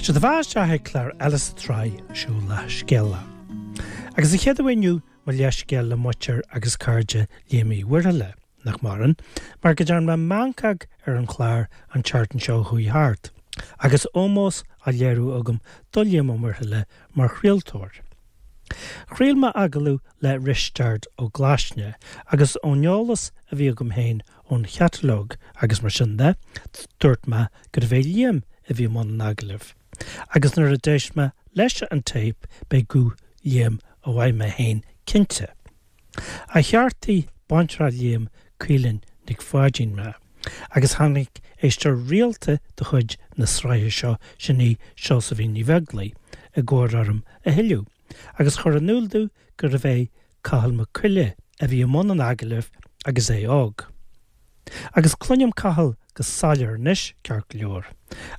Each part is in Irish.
Seo daoibh isteach ag clár eile sa tsraith seo Leathscéala. Agus an chéad uair inniu mo leithscéal le muintir agus cairde Liam Uí Mhuirthile, nach maireann, mar go dtearn mé meancóg ar an chlár an tseachtain seo a chuaigh thart, agus ómós á léiriú agam do Liam Ó Muirthile mar chraoltóir. Chraol mé agallamh le Risteard Ó Glaisne agus ón eolas a bhí agam féin ón chatalóg agus mar sin de, dúirt mé gurbh é Liam a bhí i mbun an agallaimh. Agus nuair a d'éist mé leis an téip b'é guth Liam a mhaígh mé féin cinnte. Ach cheartaigh baintreach Liam, Caoilinn Nic Pháidín mé. Agus tháinig éisteoir rialta de chuid na sraithe seo, sin í Seosaimhín Ní Bheaglaoich, i gcabhair orm a thuilleadh, agus chuir in iúl domh gurbh é Cathal Mac Coille a bhí i mbun an agallaimh agus é óg. Agus cluinim Cathal go soiléir anois, ceart go leor,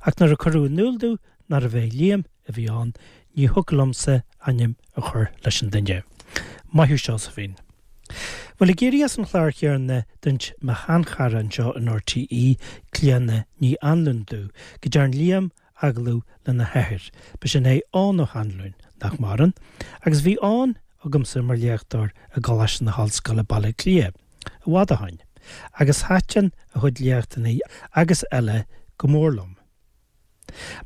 ach nuair a cuireadh in iúl domh nárbh é Liam a bhí ann, ní thiocfadh liomsa ainm a chur leis an duine. Maith thú Seosaimhín. Bhuel, ag éirí as an chlár chéanna, d'inis mo sheanchara anseo in RTÉ, Clíodhna Ní Anluain domh, go dtearn Liam agallamh lena hathair, b'shin é Eoghan Ó hAnluain, nach maireann, agus bhí Eoghan agamsa mar léachtóir i gColáiste na hOllscoile Baile Átha Cliath, i bhfad ó shoin, agus thaitin a chuid léachtanna agus eile go mór liom.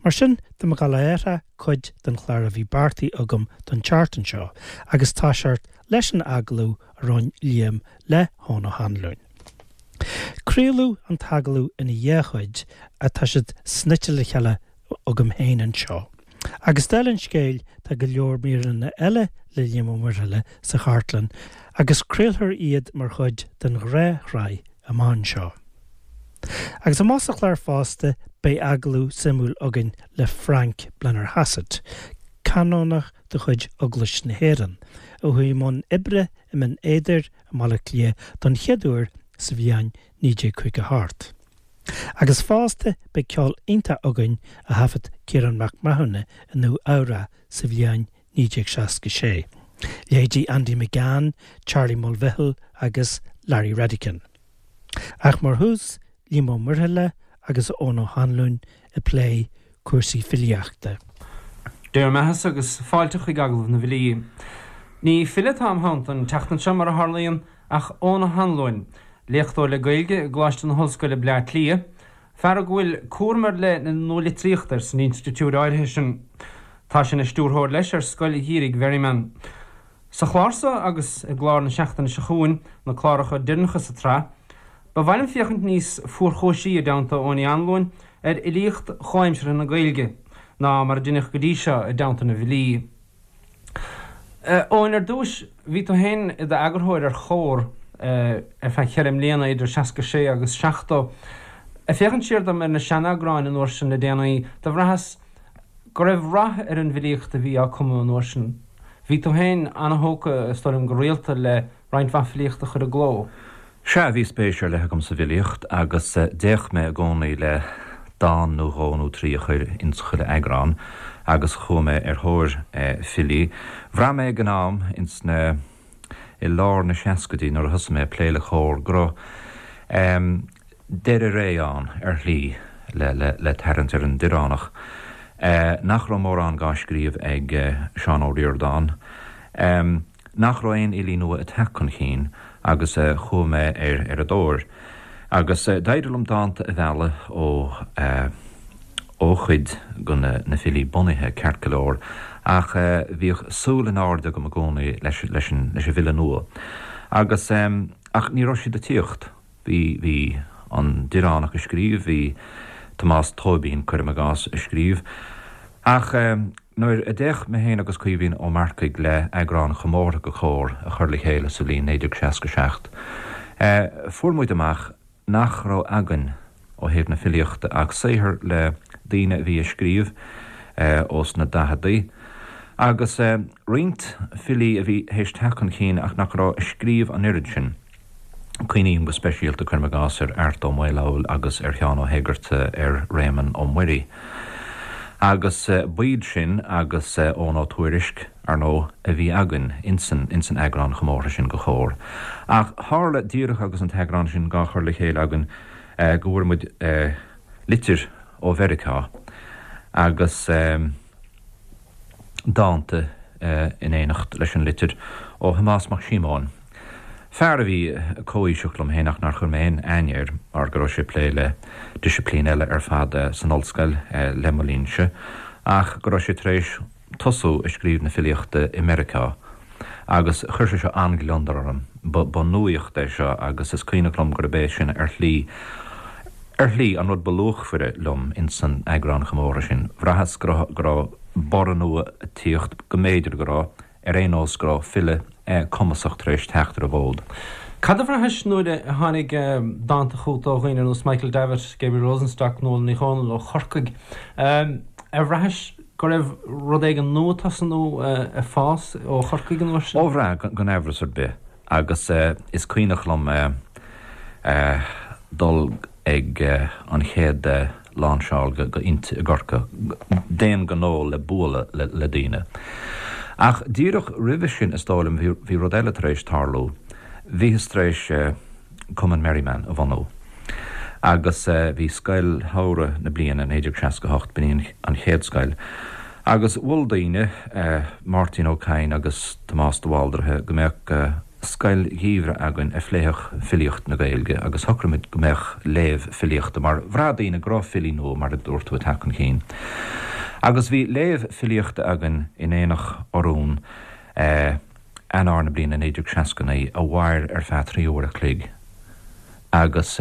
Mar sin, tá mé ag dul a athrá cuid den chlár a bhí beartaithe agam don tseachtain seo, agus toiseacht leis an agallamh a rinne Liam le hEoghan Ó hAnluain. Craoladh an t-agallamh ina dhá chuid ach tá siad snoite le chéile agam féin anseo. Agus dála an scéil tá go leor míreanna eile le Liam Ó Muirthile sa chartlann agus craolfar iad mar chuid den ghnáthshraith amach anseo. Agus amach sa chlár fosta beidh agallamh suimiúil againn le Frank Blennerhassett, canónach de chuid Eaglais na hÉireann, a chuaigh i mbun oibre i mBinn Éadair i mBaile Átha Cliath don chéad uair sa bhliain 1958. Agus fosta beidh ceol iontach againn a thaifead Ciarán Mac Mathúna i Nua Eabhrac sa bhliain 1966, leithéidí Andy McGann, Charlie Mulvihill agus Larry Redican. Ach mar thús, Liam Ó Muirthile agus Eoghan Ó hAnluain ag plé cúrsaí filíochta. Dé bhur mbeathasa agus fáilte chuig Agallamh na bhFilí. Ní file atá im theannta an tseachtain seo, mar a tharlaíonn, ach Eoghan Ó hAnluain, léachtóir le Gaeilge i gColáiste na hOllscoile Bleá Cliath, fear ag a bhfuil cúram ar leith na nualitríochta air san institiúid áirithe sin. Tá sé ina stiúrthóir leis ar Scoil Gheimhridh Mherriman. Sa chlár seo agus i gclár na seachtaine seo chugainn, na cláracha deireanacha sa tsraith, ba mhaith liom féachaint níos fuarchúisí i dteannta Eoin Uí Anluain ar fhilíocht chomhaimseartha na Gaeilge ná mar a deineadh go dtí seo i dteannta na bhfilí. Eoin, ar dtúis, bhí tú féin i d'eagarthóir ar Chomhar ar feadh cheithre mbliana, idir 66 agus 70. Ag féachaint siar dom ar na seaneagráin an uair sin le déanaí, do bhraitheas go raibh rath ar an bhfilíocht a bhí á cumadh an uair sin. Bhí tú féin an-thógtha, is dóigh liom, go rialta le roinnt mhaith filíochta a chur i gcló. Sea, bhí spéis ar leith agam sa bhfilíocht agus d'fhéach mé i gcónaí le dán nó dhó nó trí a chur ins chuile eagrán agus chuaigh mé ar thóir filí. Bhraith mé ag an am ins na, i lár na seascaidí nuair a thosaigh mé ag plé le Comhar go raibh deireadh ré ann ar shlí le, le, le tarraingt ar an Direánach, nach raibh mórán dhá scríobh ag Seán Ó Ríordáin. nach raibh aon fhilí nua ag teacht chun chinn agus chuaigh mé ar ar a dtóir. Agus d'éirigh liom dánta a mhealladh ó ó chuid de na na filí bunaithe, ceart go leor, ach bhíodh súil in airde agam i gcónaí leis leis an leis an bhfile nua. Agus ach ní raibh siad ag tíocht. Bhí, bhí an Direánach ag scríobh, bhí Tomás Tóibín, cuirim i gcás, ag scríobh. Ach nuair a d'fhéach mé féin agus Caoimhín Ó Marcaigh le eagrán chomórtha de Chomhar a chur le chéile sa bhliain 1967, fuair muid amach nach raibh againn ó thaobh na filíochta ach saothar le daoine a bhí ag scríobh ós na daicheadaí agus roinnt filí a bhí théis teacht chun cinn ach nach raibh ag scríobh an oiread sin. Cuimhním go speisialta, cuirim i gcás, ar Art Ó Maolfabhail agus ar Sheán Ó hÉigearta, ar Réamonn Ó Muirí. Agus b'iad sin agus Eoghan Ó Tuairisg, ar ndóigh, a bhí againn insan, insan eagrán chomórtha sin de Chomhar. Ach tharla, díreach agus an t-eagrán sin dhá chur le chéile againn, go bhfuair muid litir ó Mheiriceá. Agus dánta in éineacht leis an litir ó Thomás Mac Síomóin, fear a bhí comhaoiseach liom féin ach nár chuir mé aon aithne air mar go raibh sé ag plé le disciplín eile ar fad san ollscoil le mo linnse ach go raibh sé tar éis tosú ag scríobh na filíochta i Meiriceá agus chuir sé seo an-ghliondar orm. Ba nuaíocht é seo agus is cuimhneach liom gurb é sin ar shlí, ar shlí, an rud ba luachmhaire liom ins an eagrán chomórtha sin. Bhraitheas go raibh, go raibh borradh nua ag tíocht, go mb'fhéidir go raibh, ar aon nós go raibh file cumasach tar éis teacht ar an bhfód. Cad a bhraithis nuair a tháinig dánta chugat ó dhaoine ar nós Michael Davitt, Gabriel Rosenstock, Nuala Ní Dhomhnaill ó Chorcaigh? Ar bhraithis go raibh rud éigin nua ag tosnú ag fás ó Chorcaigh an uair sin? Ó bhraith, gan amhras ar bith. Agus is cuimhneach liom dul ag an chéad lainseáil go Innti i gCorcaigh, d'aon ghnó le bualadh le daoine. Ach díreach roimhe sin, is dóigh liom, bhí rud eile tar éis tarlú. Bhíothas tar éis Cumann Merriman a bhunú. Agus bhí scoil shamhraidh na bliana 1968, b'in í an chéad scoil. Agus mhol daoine, Máirtín Ó Cadhain agus Tomás de Bhaldraithe, go mbeadh scoil gheimhridh againn a phléifeadh filíocht na Gaeilge agus shocraigh muid go mbeadh léamh filíochta mar bhraith daoine go raibh filí nua, mar a dúirt tú, ag teacht chun cinn. Agus bhí léamh filíochta againn in Aonach Urumhan. Eanáir na bliana 1969 a mhair ar feadh 3 uair a chloig agus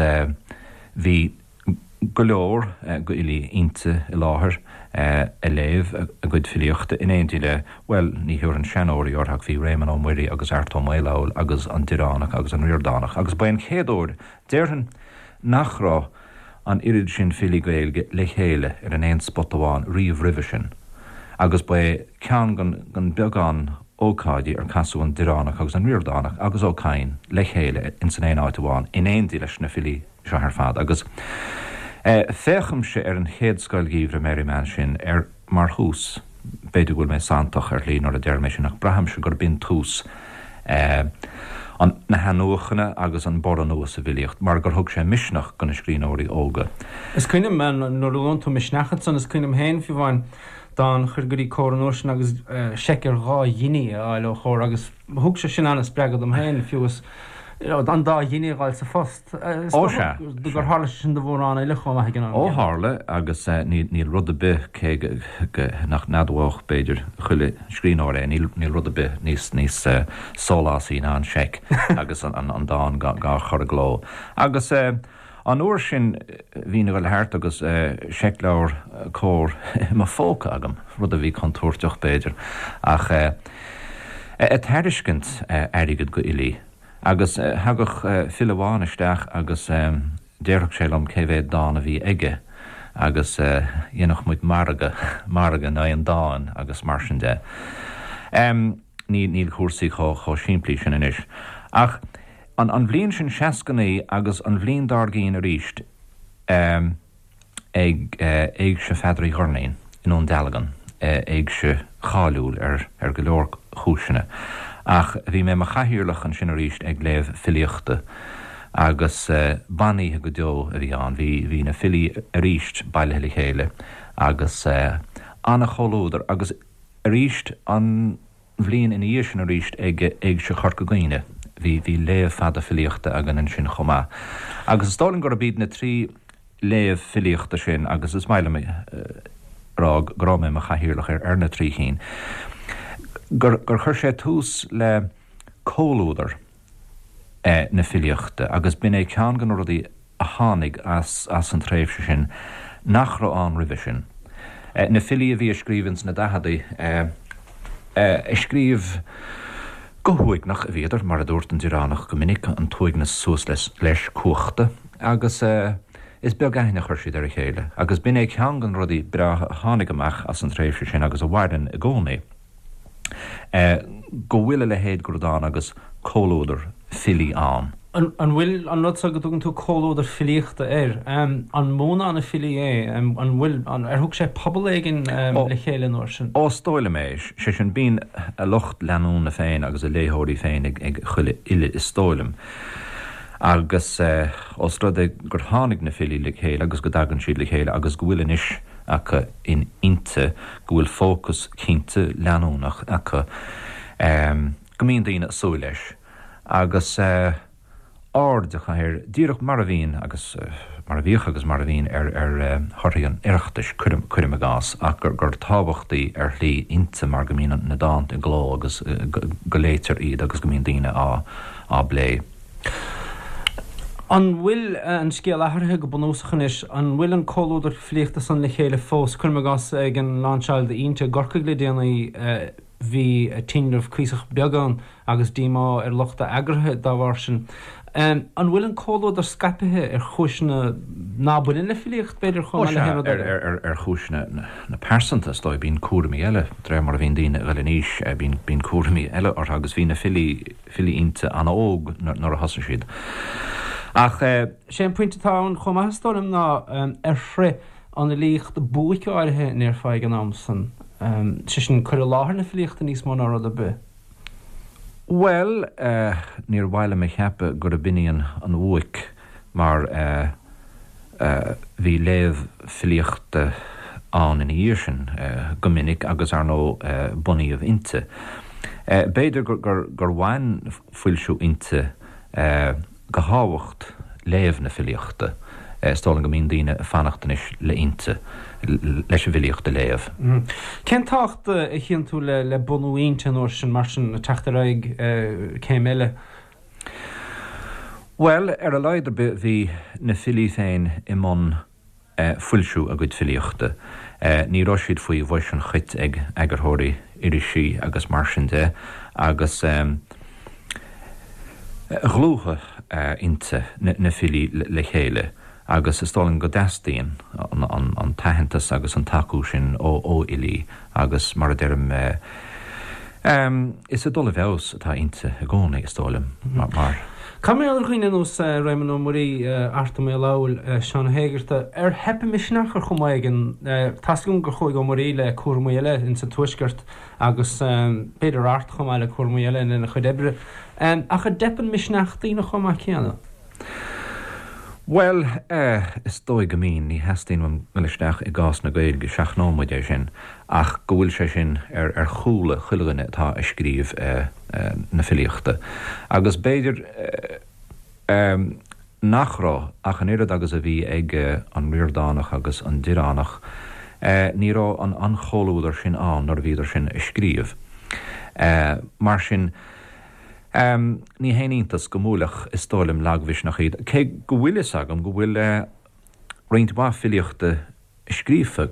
bhí go leor d'fhilí Innti i láthair ag léamh a gcuid filíochta in éindí le, bhuel, ní thabharfainn seanóirí orthu ach bhí Réamonn Ó Muirí agus Art Ó Maolfabhail agus an Direánach agus an Ríordánach agus ba é an chéad uair, déarfainn, nach raibh an oiread sin filí Gaeilge le chéile ar an aon spota amháin riamh roimhe sin agus ba é ceann den bheagán ócáidí ar casadh an Direánach agus an Ríordánach agus Ó Cadhain le chéile ins an aon áit amháin in éindí leis na filí seo ar fad agus féachaimse ar an chéad Scoil Gheimhridh Merriman sin ar mar thús, b'fhéidir go bhfuil mé santach ar shlí nuair a deirim é sin, ach braithimse gurb in tús an na hathnuachana agus an borradh nua sa bhfilíocht, mar gur thug sé misneach do na scríbhneoirí óga. Is cuimhin liom, nuair a luann tú misneach ansan, is cuimhin liom féin, fiú amháin, dán a chur go dtí Comhar an uair sin agus seic ar dhá ghiní a fháil ó Chomhar agus thug sé sin an-spreagadh dom féin, fiú is an dá ghiní a fháil sa phost. Is Ó sea, dócha gur tharla sé sin do mhórán eile chomh maith ag an am Ó céanna. tharla, agus níl rud ar bith, cé go nach n-admhódh, b'fhéidir, chuile scríbhneoir é, níl rud ar bith níos níos sólásaí ná an seic agus an dán dhá chur i gcló. Agus an uair sin bhínn ag dul thart agus seicleabhar Comhar i mo phóca agam, rud a bhí contúirteach, b'fhéidir, ach ag tairiscint airgid go fhilí. Agus thagadh file amháin isteach agus déarfadh sé liom cé mhéad dán a bhí aige agus dhéanfadh muid margadh, margadh in aghaidh an dáin agus mar sin de. Ní, níl cúrsaí chomh, chomh simplí sin anois. Ach an, an bhliain sin 69 agus an bhliain dár gcionn arís, ag Éigse Pheadair Uí Dhoirnín i nDún Dealgan, éigse cháiliúil ar go leor cúiseanna. Ach bhí mé i mo chathaoirleach ansin arís ag léamh filíochta agus ban-oíche go deo a bhí ann. Bhí bhí na filí arís bailithe le chéile agus an-chomhluadar agus arís an bhliain ina dhiaidh sin arís ag Éigse Chorca Dhuibhne. Bhí bhí léamh fada filíochta againn ansin chomh maith. Agus is dóigh liom gurb iad na trí léamh filíochta sin, agus is maith liom a rá go raibh mé i mo chathaoirleach ar ar na trí chinn, gur gur chuir sé tús le comhluadar na filíochta agus b'in é ceann de na rudaí a tháinig as as an tréimhse sin nach raibh ann roimhe sin. Na filí a bhí ag scríobh ins na daicheadaí, ag scríobh go huaigneach a bhíodar, mar a dúirt an Direánach go minic, an t-uaigneas suas leis cuachta, agus is beag aithne a chuir siad ar a chéile. Agus b'in é ceann de na rudaí breátha a tháinig amach as an tréimhse sin agus a mhaireann i gcónaí. go bhfuil a leithéid de rud ann agus comhluadar filí ann. An bhfuil an rud seo go dtugann tú comhluadar filíochta air, an múnán na filí é? An bhfuil, ar thug sé pobal éigin le chéile an uair sin? Ó, is dóigh liom é. Sé sin, bíonn a lucht leanúna féin agus a léitheoirí féin ag chuile fhile, is dóigh liom. Agus os rud é gur tháinig na filí le chéile agus go dtagann siad le chéile agus go bhfuil anois. acu in Innti, go bhfuil fócas cinnte leanúnach acu, go mbíonn daoine ag súil leis agus aird acu air, díreach mar a bhíonn agus mar a bhíodh agus mar a bhíonn ar thorthaí an Oireachtais, cuirim i gcás, ach gur tábhachtaí ar shlí Innti mar go mbíonn na dánta i gcló agus go léitear iad agus go mbíonn daoine á bplé. An bhfuil an scéal athraithe go bunúsach anois? An bhfuil an comhluadar filíochta san le chéile fós? Cuirim i gcás, ag an lainseáil d'Innti i gCorcaigh le déanaí, bhí tinreamh cuíosach beag ann agus díomá ar lucht a eagraithe dá bharr sin. An bhfuil an comhluadar scaipthe ar chúiseanna ná baineann le filíocht, b'fhéidir, chomh maith le haon rud eile? Ar chúiseanna na pearsanta, is dóigh. Bíonn cúraimí eile, de réir mar a bhíonn daoine ag dul in aois, bíonn cúraimí eile orthu agus bhí na filí, filí Innti an-óg nuair a thosaigh siad. Ach. Sé an pointe atá ann chomh maith is dóigh liom ná ar shroich an fhilíocht buaic áirithe a ndéarfá ag an am san, sé sin cur i láthair na filíochta níos mó ná rud ar bith. Bhuel, níor mhaith liom a cheapadh gurb in í an bhuaic mar bhí léamh filíochta ann ina dhiaidh sin go minic agus, ar ndóigh, bunaíodh Innti. B'fhéidir gur bhain foilsiú Innti go thábhacht léamh na filíochta. Is dóigh liom go mbíonn daoine ag fanacht anois le Innti leis an bhfilíocht a léamh. Cén tábhacht a chíonn tú le bunú Innti an uair sin, mar sin, ag teacht ar aghaidh céim eile? Bhuel, ar a laghad ar bith bhí na filí féin i mbun foilsiú a gcuid filíochta. Ní raibh siad faoi bhois an chait ag eagarthóirí irisí agus mar sin de agus dhlúthaigh Innti na filí le chéile. Agus is dóigh liom go dteastaíonn an t-aitheantas agus an tacú sin ó fhilí agus mar a deirim, is ag dul i bhfeabhas atá Innti i gcónaí, is dóigh liom, mar. Cad mar gheall ar dhaoine ar nós Réamonn Ó Muirí, Art Ó Maolfabhail, Seán Ó hÉigeartaigh, ar theip a misneach ar chuma éigin? Tá's agam gur chuaigh Ó Muirí le cúramaí eile insa Tuaisceart agus b'fhéidir Art chomh maith le cúramaí eile lena chuid oibre. Ach an dteipeann misneach daoine chomh maith céanna? Bhuel, eh, is dóigh go mbíonn, ní theastaíonn uaim dul isteach i gcás na Gaeilge, seachnóidh muid é sin, ach go bhfuil sé sin ar, ar chúla chuile dhuine atá ag scríobh eh, na filíochta. Agus b'fhéidir eh, nach raibh ach an oiread agus a bhí ag an Ríordánach agus an Direánach, eh, ní raibh an, an chomhluadar sin ann nuair a bhíodar sin ag scríobh. Eh, mar sin, Ní haon iontas go mbuailfeadh, is dóigh liom, lagmhisneach iad, cé go bhfuil fhios agam go bhfuil roinnt mhaith filíochta scríofa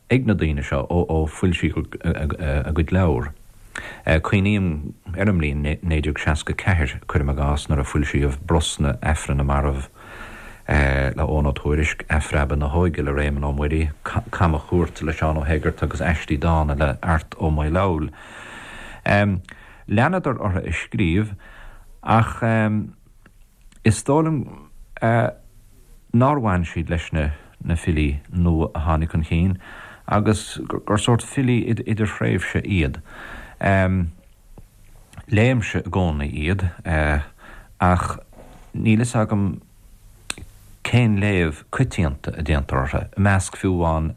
ag na daoine seo ó foilsíodh a gcuid leabhar. Cuimhním ar an mbliain 1964, cuirim i gcás, nuair a foilsíodh Brosna, Aifreann na Marbh le Eoghan Ó Tuairisc, Athphreabadh na hÓige le Réamonn Ó Muirí, Camachuairt le Seán Ó hÉigeartaigh agus Aistí Dána le Art Ó Maolfabhail. Leanadar orthu ag scríobh ach is dóigh liom nár bhain siad leis na filí nua a tháinig chun cinn agus gur sórt filí idirthréimhse iad. Léimse i gcónaí iad ach níl fhios agam cén léamh coitianta a déantar orthu, i measc fiú amháin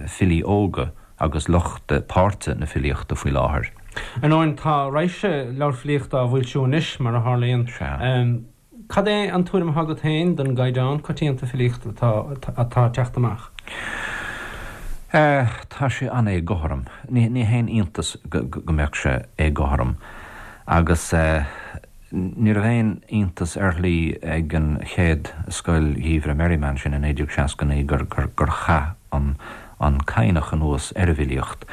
filí óga agus lucht páirte na filíochta faoi láthair. Ar ndóin, tá raidhse leabhar filíochta á bhfoilsiú anois, mar a tharlaíonn. Sea. Cad é an tuairim atá agat féin den gcaighdeán coitianta filíochta atá ag teacht amach? Tá sé an-éagothrom. Ní haon iontas go mbeadh sé éagothrom. Agus. Ní raibh aon iontas ar shlí ag an chéad Scoil Gheimhridh Merriman sin i 1969 gur chaith an Cadhnach anuas ar an bhfilíocht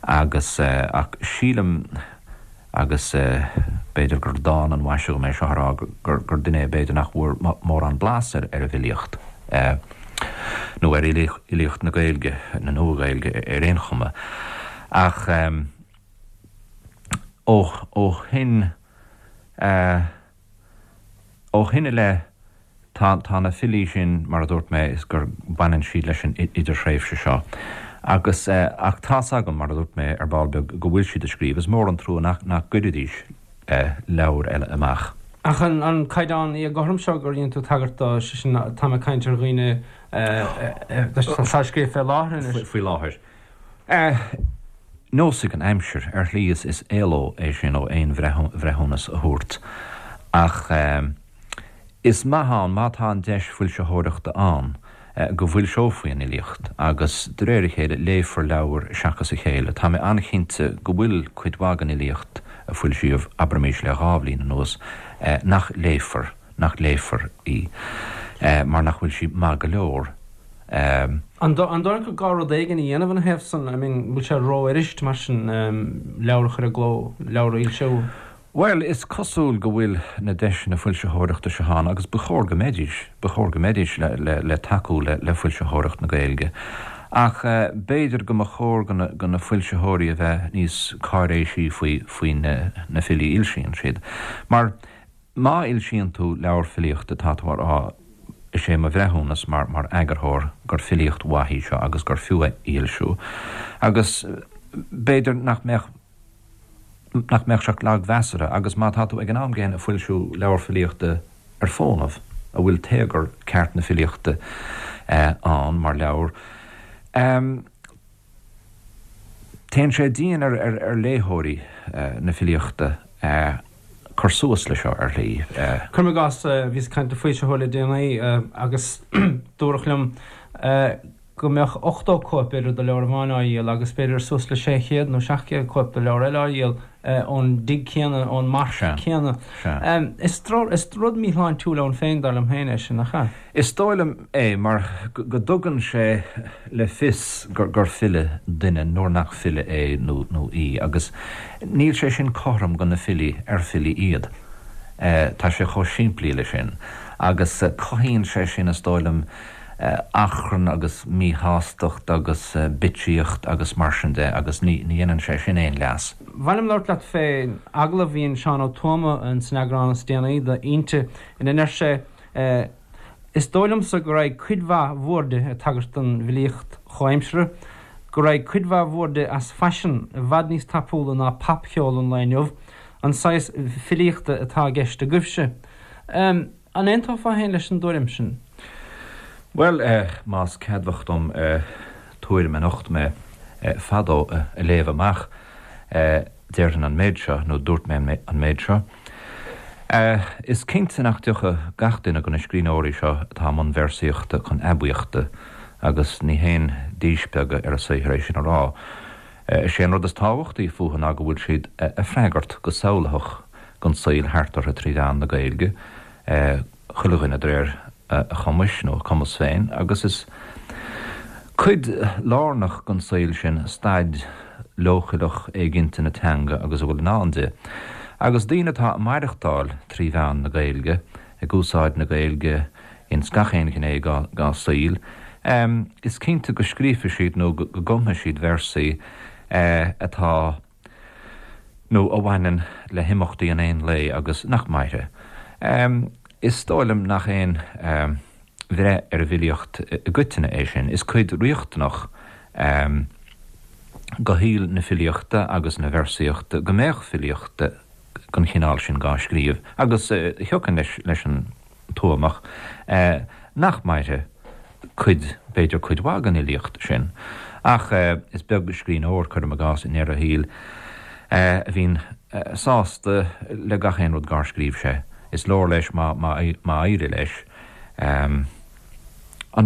agus ach sílim, agus b'fhéidir gur dán an mhaise dhom é seo a rá, gur duine é b'fhéidir nach bhfuair mórán blas ar an bhfilíocht nó ar fhilíocht na Gaeilge, na Nua-Ghaeilge ar aon chuma. Ach. Ó shin ó shin i leith tá tá na filí sin, mar a dúirt mé, is gur baineann siad leis an idirthréimhse seo. Agus ach tá's agam, mar a dúirt mé ar ball beag, go bhfuil siad ag scríobh. Is mór an trua nach nach gcuirfidís leabhair eile amach. Ach an caighdeán éagothrom seo gur dhein tú tagairt dó, sé sin, táim ag caint ar dhaoine atá ag scríobh fé láthair anois. Faoi láthair. Neosfaidh an aimsir. Ar shlí is éaló é sin ó aon bhreithiúnas a thabhairt. Ach is maith ann, má tá an deis foilsitheoireachta ann, go bhfoilseofaí an fhilíocht agus de réir a chéile léifear leabhar seachas a chéile. Tá mé an-chinnte go bhfuil cuid mhaith den fhilíocht a foilsíodh, abraimis le 2 bhliain anuas, nach léifear, nach léifear í mar nach bhfuil sí maith go leor. An dóigh leat gur gá rud éigin a dhéanamh ina thaobh san? I mean, bhfuil sé rófhuirist mar sin leabhar a chur i gcló, leabhar a fhoilsiú? Bhuel, is cosúil go bhfuil na deiseanna foilsitheoireachta seo ann agus ba chóir go mbeidís, ba chóir go mbeidís le tacú le foilsitheoireacht na Gaeilge. Ach b'fhéidir go mba chóir go na foilsitheoirí a bheith níos cáiréisí faoi faoi na filí a fhoilsíonn siad. Mar má fhoilsíonn tú leabhar filíochta tá tú a rá, is é mo bhreithiúnas mar mar eagarthóir gur filíocht mhaith í seo agus gur fiú é a fhoilsiú. Agus b'fhéidir nach mbeadh. nach mbeadh sé ach lagmheasartha, agus má tá tú ag an am gcéanna ag foilsiú leabhar filíochta ar fónamh, a bhfuil téagar ceart na filíochta ann mar leabhar, téann sé dian ar léitheoirí na filíochta cur suas le seo, ar shlí. Cuirim i gcás, bhíos ag caint le foilsitheoir le déanaí agus dúradh liom go mbeadh 80 cóip b'fhéidir de leabhar amháin á dhíol agus b'fhéidir suas le 600 nó 700 cóip de leabhar eile á dhíol ón dtigh céanna, ón marc céanna. Is rud míshláintiúil ann féin, dar liom féin, é sin, nach ea? Is dóigh liom é mar go dtugann sé le fios gur file duine nuair nach file é nó í agus níl sé sin cothrom go na filí ar filí iad. Tá sé chomh simplí le sin agus cothaíonn sé sin, is dóigh liom, achrann agus míshástacht agus bitsíocht agus mar sin de agus ní dhéanann sé sin aon leas. Ba mhaith liom labhairt leat fén agallamh a dhein Seán Ó Tuama san eagrán is déanaí d'Fhoinse ina ndeir sé Is dóigh liomsa go raghaidh cuid mhaith bhoird, ag tagairt don bhfilíocht chomhaimseartha, go raghaidh cuid mhaith bhoird as faisean i bhfad níos tapúla ná popcheol an lae inniu, an saghas filíochta atá i gceist agaibhse. An aontófá féin leis an dtuairim sin? Bhuel, más ceadmhach dom tuairim a nocht mé fadó a léamh amach, déarfainn an méid seo, nó dúirt mé an méid seo, Is cinnte nach dtiocfaidh gach duine de na scríbhneoirí seo atá i mbun véarsaíochta chun aibíochta, agus ní haon díspeagadh ar a saothar é sin a rá. Is é an rud is tábhachtaí fúthu ná go bhfuil siad a' freagairt go samhlaitheach gon saol thart orthu trí mheán na Gaeilge, chuile dhuine de réir a chumais nó a cumas féin, agus is cuid lárnach den saol sin staid leochaileach éiginnte na teanga agus a bhfuil i ndán di. Agus daoine atá ag maireachtáil trí mheán na Gaeilge, ag úsáid na Gaeilge ins gach aon ghné dá saol, is cinnte go scríobfaidh siad nó go gcumfaidh siad véarsaí atá nó a bhaineann le himeachtaí an aon lae agus nach mairfidh. Is dóigh liom nach aon bhreith ar an bhfilíocht i gcoitinne é sin. Is cuid riachtanach de shaol na filíochta agus na véarsaíochta go mbeadh filíocht den chineál sin dhá scríobh agus thiocfainn leis an Tuamach, nach mairfidh cuid, b'fhéidir cuid mhaith den fhilíocht sin. Ach is beag scríbhneoir, cuirim i gcás, i ndeireadh a shaoil, a bhíonn sásta le gach aon rud dhár scríobh sé. Is leor leis má éirigh leis an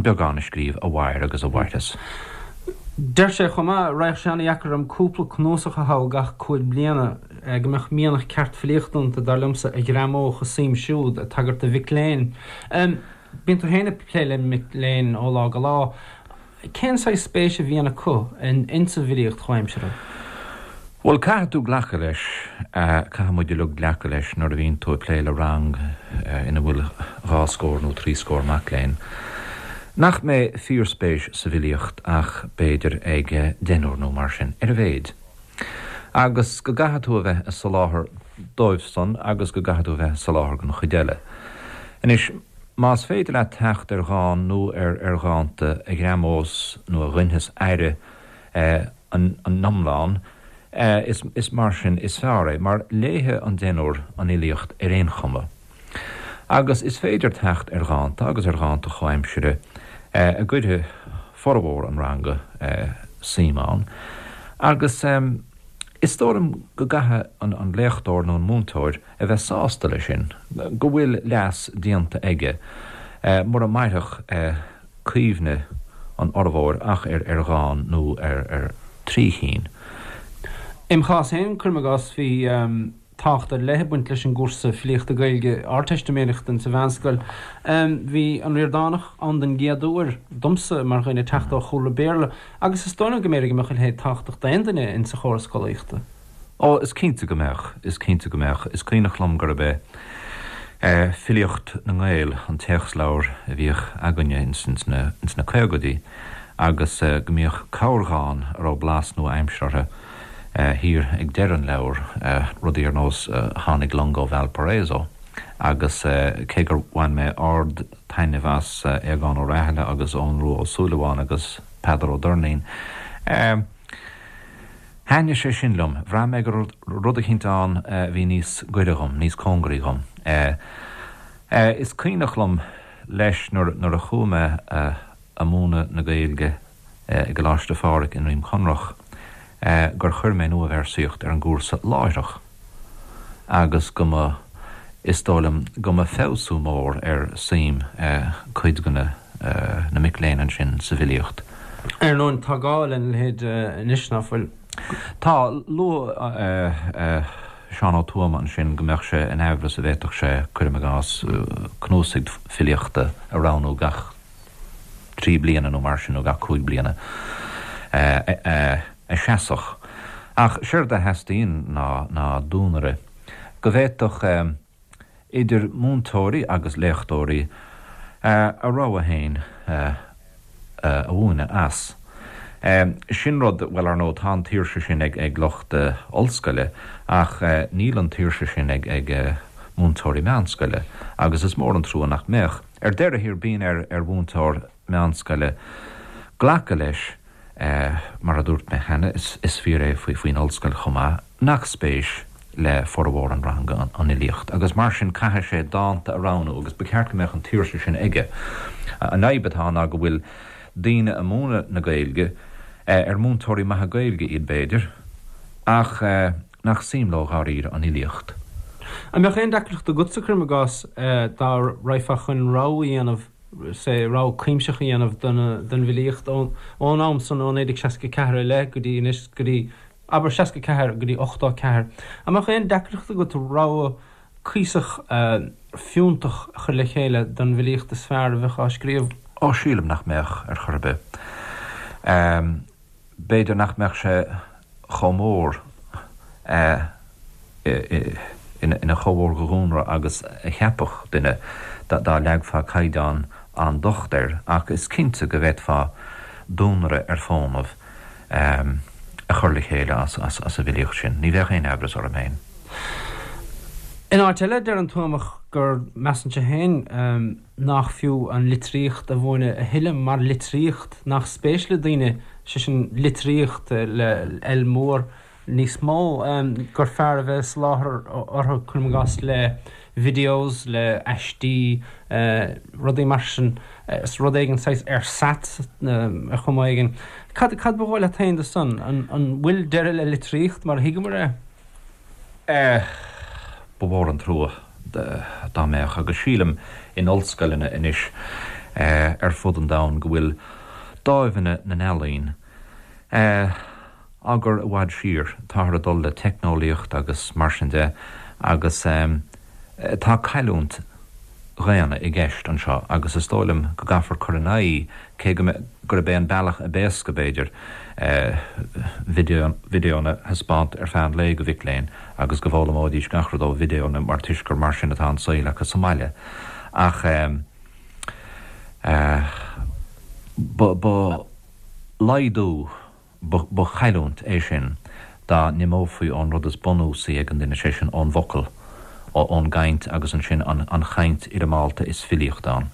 beagán a scríobh a mhair agus a mhairfeas. Deir sé chomh maith, Raghadh sé an-dheacair orm cúpla cnuasach a thoghadh gach 5 bliana, go mbeadh mianach ceart filíochta iontu, dar liomsa, a ghreamódh a suim siúd, ag tagairt do mhic léinn. Bíonn tú féin ag plé le mic léinn ó lá go lá. Cén saghas spéis a bhíonn acu insa bhfilíocht chomhaimseartha? Bhuel, caithfidh tú glacadh leis, caithfidh muid uilig glacadh leis nuair a bhíonn tú ag plé le rang ina bhfuil dhá scór nó trí scór mac léinn, nach mbeidh fíorspéis sa bhfilíocht ach b'fhéidir ag deichniúr nó mar sin, ar a mhéid. Agus go gcaithfidh tú a bheith ag soláthar dóibh san agus go gcaithfidh tú a bheith ag soláthar don chuid eile. Anois, más féidir leat teacht ar dhán nó ar ar dhánta a ghreamós nó a ghoinfeas aire an iomlán, is mar sin is fearr é, mar léifidh an deichniúr an fhilíocht ar aon chuma. Agus is féidir teacht ar dhánta agus ar dhánta chomhaimsire a gcuirfidh formhór an ranga suim ann. Agus is dóigh liom go gcaithfidh an léachtóir nó an múinteoir a bheith sásta leis sin, go bhfuil leas déanta aige, mura mairfeadh cuimhne an fhormhóir ach ar dhán nó ar thrí chinn. Im chás féin, cuirim i gcás, bhí tábhacht ar leith ag baint leis an gcúrsa filíochta Gaeilge Ardteistiméireachta insa mheánscoil. Bhí an Ríordánach ann den gcéad uair domsa mar dhuine ag teacht ó chúlra Béarla agus is dóigh liom go mb'fhéidir go mbeadh a leithéid tábhachtach d'aon duine insa chóras scolaíochta. Ó, is cinnte go mbeadh, is cinnte go mbeadh. Is cuimhneach liom gurb é Filíocht na nGael an téacsleabhar a bhíodh againne ins na caogaidí agus go mbíodh corrdhán a raibh blas nua-aimseartha orthu thiar ag deireadh an leabhair, rudaí ar nós Tháinig Long ó Valparaiso agus cé gur bhain mé ard-taitneamh as Aogán Ó Rathaille agus Eoghan Rua Ó Súilleabháin agus Peadar Ó Doirnín, Thaitnigh sé sin liom. Bhraith mé go raibh rud eicínt ann a bhí níos gaire dhom, níos cóngaraí dhom. Is cuimhneach liom leis nuair a chuaigh mé a múineadh na Gaeilge i gColáiste Phádraig i nDroim Conrach gur chuir mé nuabhéarsaíocht ar an gcúrsa láithreach. agus go mba, is dóigh liom, go mba feabhsú mór ar suim cuid de na mic léinn ansin sa bhfilíocht. Ar ndóin, tá gá lena leithéid anois, ná fuil? Tá. Luaigh Seán Ó Tuama ansin go mbeadh sé in aimhleas a bhféadfadh sé, cuirim i gcás, cnuasaigh filíochta a roghnú gach trí bliana nó mar sin, nó gach 5 bliana, a sheasfadh. Ach séard a theastaíonn ná duanaire go bhféadfadh idir múinteoirí agus léachtóirí a rogha féin a mhúineadh as. Sin rud, bhuel, ar ndóigh, tá an tsaoirse sin ag lucht ollscoile ach níl an tsaoirse sin ag múinteoirí meánscoile agus is mór an trua nach mbeadh. Ar deireadh thiar, bíonn ar mhúinteoir meánscoile glacadh leis, mar a dúirt mé cheana, is fíor é faoin ollscoil chomh maith, nach spéis le formhór an ranga an fhilíocht agus mar sin caithfidh sé dánta a roghnú agus ba cheart go mbeadh an tsaoirse sin aige. An fhadhb atá ann ná go bhfuil daoine a múineadh na Gaeilge, ar múinteoirí maithe Gaeilge iad b'fhéidir, ach nach suim leo dháiríre an fhilíocht. An mbeadh aon deacracht agatsa, cuirim i gcás, dá raghfá chun rogha a dhéanamh, say, rogha cuimsitheach a dhéanamh don bhfilíocht ón am san, ó 1964 i leith go dtí anois, go dtí, abair, 64 go dtí 84. An mbeadh aon deacracht agat rogha cuíosach fiúntach a chur le chéile don bhfilíocht is fearr a bheadh á scríobh? Ó, sílim nach mbeadh, ar chor ar bith. B'fhéidir nach mbeadh sé chomh mór, ina chomh mhór de dhuanaire agus a cheapfadh duine dá leagfá caighdeán an-docht air, ach is cinnte go bhféadfá duanaire ar fónamh a chur le chéile as an bhfilíocht sin. Ní bheadh aon aimhreas orm féin. In áit eile, deir an Tuamach gur measann sé féin, nach fiú an litríocht a mhúineadh a thuilleadh mar litríocht, nach spéis le daoine, sé sin litríocht le L mór, níos mó, gur fearr a bheith ag soláthar orthu, cuirim i gcás, le videos, le aistí, rudaí mar sin, rud éigin saghas ersatz ar chuma éigin. Cad cad ba dhóigh leat féin de san? An bhfuil deireadh le litríocht mar a thuigeamar é? Ba mhór an trua dá mbeadh, agus sílim in ollscoileanna anois ar fud an domhain go bhfuil dáimheanna na n-ealaíon á gcur i bhfad siar. Táthar ag dul le teicneolaíocht agus mar sin de agus tá cailliúint dhaonna i gceist anseo agus is dóigh liom go gcaithfear cur in aghaidh cé go gurb é an bealach ab éasca, b'fhéidir, videónna a thaispeáint ar feadh an lae go mhic léinn agus go bhfoghlaimeoidís gach rud ó videónna mar toisc gur mar sin atá an saol acu sa mbaile. Ach ba laghdú. Ba chailliúint é sin dá n-imeofaí ón rud is bunúsaí ag an duine, sé sin ón bhfocal, ón gcaint agus ansin an chaint fhoirmeálta is filíocht ann.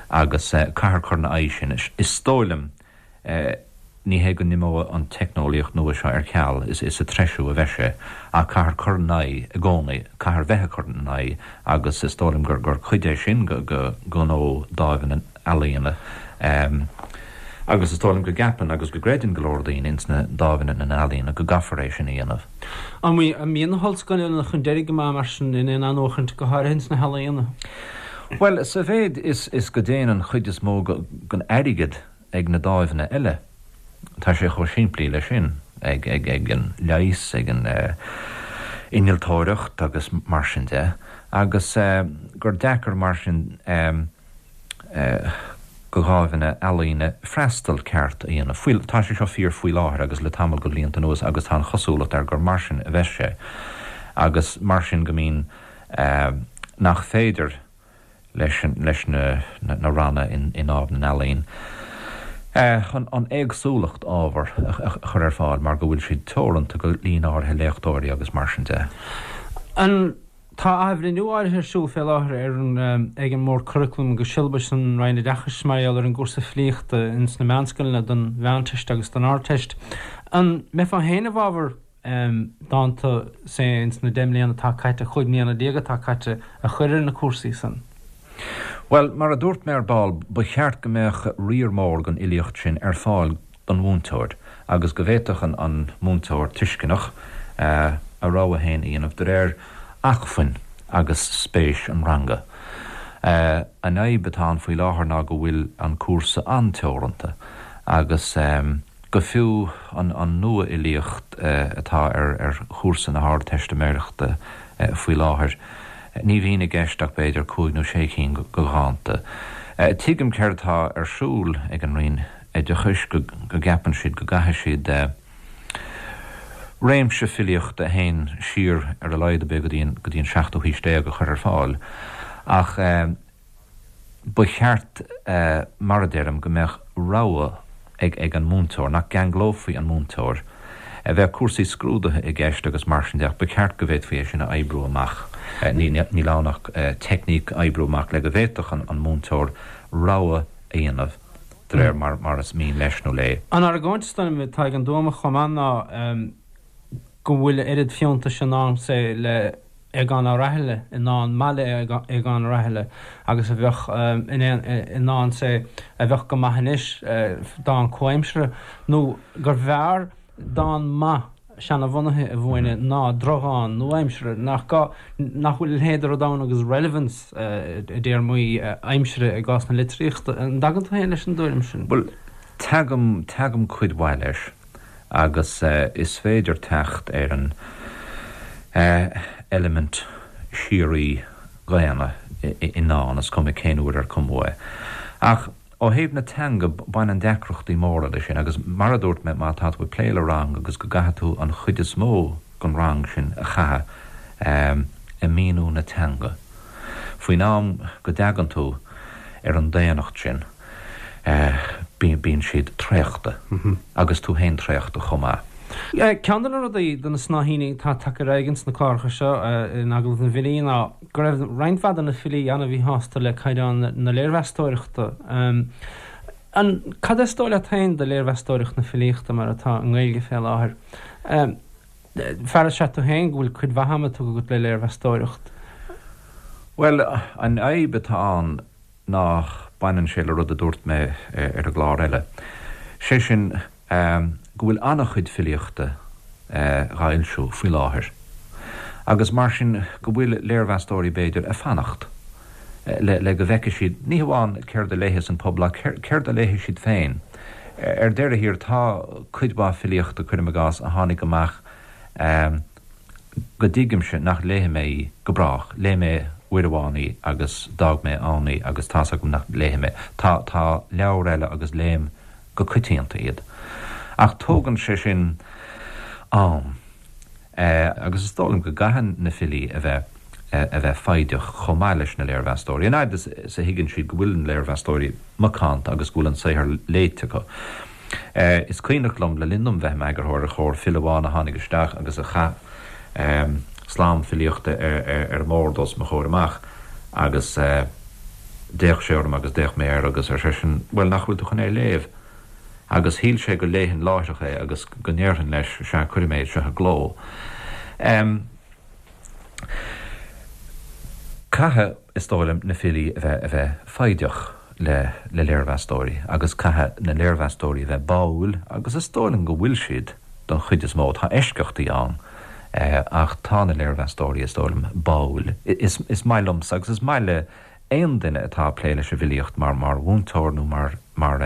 Agus caithfear cur ina aghaidh sin. Is dóigh liom. Ní hé go n-imeoidh an teicneolaíocht nua seo ar ceal, is sa treisiú a bheidh sé, ach caithfear cur in aghaidh i gcónaí, caithfear bheith ag cur in aghaidh agus is dóigh liom gur cuid é sin de ghnó Dáimh na nEalaíona agus is dóigh liom go gceapann agus go gcreideann go leor daoine ins na Dáimheanna na nEalaíona go gcaithfear é sin a dhéanamh. An mbíonn na hollscoileanna chun deiridh go maith mar sin in aon athnuachaint, go háirithe ins na healaíona? Bhuel, sa mhéid is go dtéann an chuid is mó den airgead ag na dáimheanna eile. Tá sé chomh simplí leis sin, ag an leigheas, ag an innealtóireacht agus mar sin de, agus gur deacair mar sin do dháimheanna ealaíne freastal ceart a dhéanamh. Faoi, tá sé seo fíor faoi láthair agus le tamall de bhlianta anuas agus tá an chosúlacht air gur mar sin a bheas sé agus mar sin go mbíonn nach féidir leis na ranna i nDámh na nEalaíon an éagsúlacht ábhar a chur ar fáil mar go bhfuil siad teoranta go líon áirithe léachtóirí agus mar sin de. An Tá athbhreithniú áirithe ar siúl fé láthair ar an ag an mBord Curaclaim agus Siollabais san Roinn Oideachais mar gheall ar an gcúrsa filíochta ins na meánscoileanna don Mheánteist agus don Ardteist. An mbeifeá féin i bhfabhar dánta, say, ins na 10 mbliana atá caite, 15 mbliana atá caite, a chur ar na cúrsaí san. Bhuel, mar a dúirt mé ar ball, ba cheart go mbeadh riar mór den fhilíocht sin ar fáil don mhúinteoir agus go bhféadfadh an múinteoir tuisceanach a rogha féin a dhéanamh de réir acmhainn agus spéis an ranga. An fhadhb atá ann faoi láthair ná go bhfuil an cúrsa an-teoranta agus. Go fiú an nua-fhilíocht atá ar chúrsa na hArdteistiméireachta faoi láthair, ní bhíonn i gceist ach b'fhéidir cúig nó sé cinn de dhánta. Tuigim céard atá ar siúl ag an Roinn Oideachais, go gceapann siad go gcaithfidh siad réimse filíochta a théann siar ar a laghad ar bith go dtí an seachtú haois déag a chur ar fáil, ach. Ba cheart, mar a deirim, go mbeadh rogha ag an múinteoir, nach gceanglófaí an múinteoir. Bheadh cúrsaí scrúduithe i gceist agus mar sin de ach ba cheart go bhféadfaí é sin a oibriú amach. Níl ann ach teicníc a oibriú amach le go bhféadfadh an múinteoir rogha a dhéanamh de réir mar is mian leis nó léi. An argóint is dóigh liom atá ag an Tuamach chomh maith ná go bhfuil a oiread fiúntais i ndán, say, le Aogán Ó Raithile, i ndán maith le Aogán Ó Raithile agus a bheadh in i ndán, say, a bheadh go maith anois, dán comhaimseartha, nó gur bhfearr dán maith seanabhunaithe a mhúineadh ná drochdhán nua-aimseartha, nach gá, nach bhfuil a leithéid de rud ann agus relevance i dtéarmaí aimsire i gcás na litríochta. An dtagann tú féin leis an dtuairim sin? Bhuel, tagaim, tagaim cuid mhaith leis. agus is féidir teacht ar an eilimint síoraí dhaonna i ndán, is cuma cén uair ar cumadh é. Ach ó thaobh na teanga, baineann deacrachtaí móra leis sin, agus mar a dúirt mé, má tá tú ag plé le rang agus go gcaithfidh tú an chuid is mó den rang sin a chaitheamh ag míniú na teanga, faoin am go dtagann tú ar an daonnacht sin, bíonn siad traochta, agus tú féin traochta chomh maith. Ceann de na rudaí, de na snáithíní atá tagtha ar aghaidh ins na cláracha seo in Agallamh na bhFilí ná go raibh roinnt mhaith de na filí an-mhíshásta le caighdeán na léirmheastóireachta. An, cad is dóigh leat féin de léirmheastóireacht na filíochta mar atá i nGaeilge fé láthair? Fear is ea tú féin go bhfuil cuid mhaith ama tugtha agat le léirmheastóireacht. Bhuel, an fhadhb atá ann ná baineann sé le rud a dúirt mé ar an gclár eile, sé sin go bhfuil an-chuid filíochta dhá fhoilsiú faoi láthair agus mar sin go bhfuil léirmheastóirí b'fhéidir ag fanacht le go bhfeicfidh siad ní hamháin céard a léifeas an pobal ach céard a léifidh siad féin. Ar deireadh thiar tá cuid mhaith filíochta, cuirim i gcás, a tháinig amach go dtuigimse nach léifidh mé í go brách. Léigh mé uair amháin í agus d'fhág mé ann í agus tá's agam nach léifidh mé. Tá, tá leabhair eile agus léim go coitianta iad. Ach tógann sé sin am. Agus is dóigh liom go gcaitheann na filí a bheith, a bheith foighdeach chomh maith leis na léirmheastóirí. An fhaid is a thuigeann siad go bhfuil na léirmheastóirí macánta agus go bhfuil an saothar léite acu. Is cuimhneach liom, le linn dom bheith i m'eagarthóir ar Chomhar, file amháin a tháinig isteach agus a chaith slám filíochta ar an mbord os mo chomhair amach agus d'fhéach sé orm agus d'fhéach mé air agus ar seisean, 'Bhuel, nach bhfuil tú chun é a léamh? Agus shíl sé go léifinn láithreach é agus go ndéarfainn leis, sea, cuirfidh mé é seo i gcló. Caithfidh, is dóigh liom, na filí a bheith, a bheith foighdeach le, le léirmheastóirí agus caithfidh na léirmheastóirí a bheith báúil agus is dóigh liom go bhfuil siad don chuid is mó, tá eisceachtaí ann ach tá na léirmheastóirí, is dóigh liom, báúil. Is, is maith liomsa agus is maith le aon duine atá ag plé leis an bhfilíocht mar, mar mhúinteoir nó mar, mar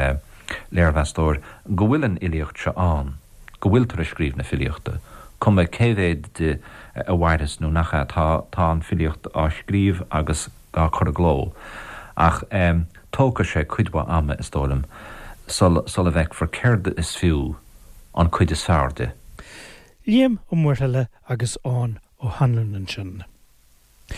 léirmheastóir go bhfuil an fhilíocht seo ann. go bhfuiltear ag scríobh na filíochta, cuma cé mhéad di a mhairfeas nó nach ea, tá, tá an filíocht á scríobh agus á cur i gcló. Ach tógfaidh sé cuid mhaith ama, is dóigh liom, sula bhfeicfear céard is fiú an cuid is fearr di. Liam Ó Muirthile agus Eoghan Ó hAnluain ansin.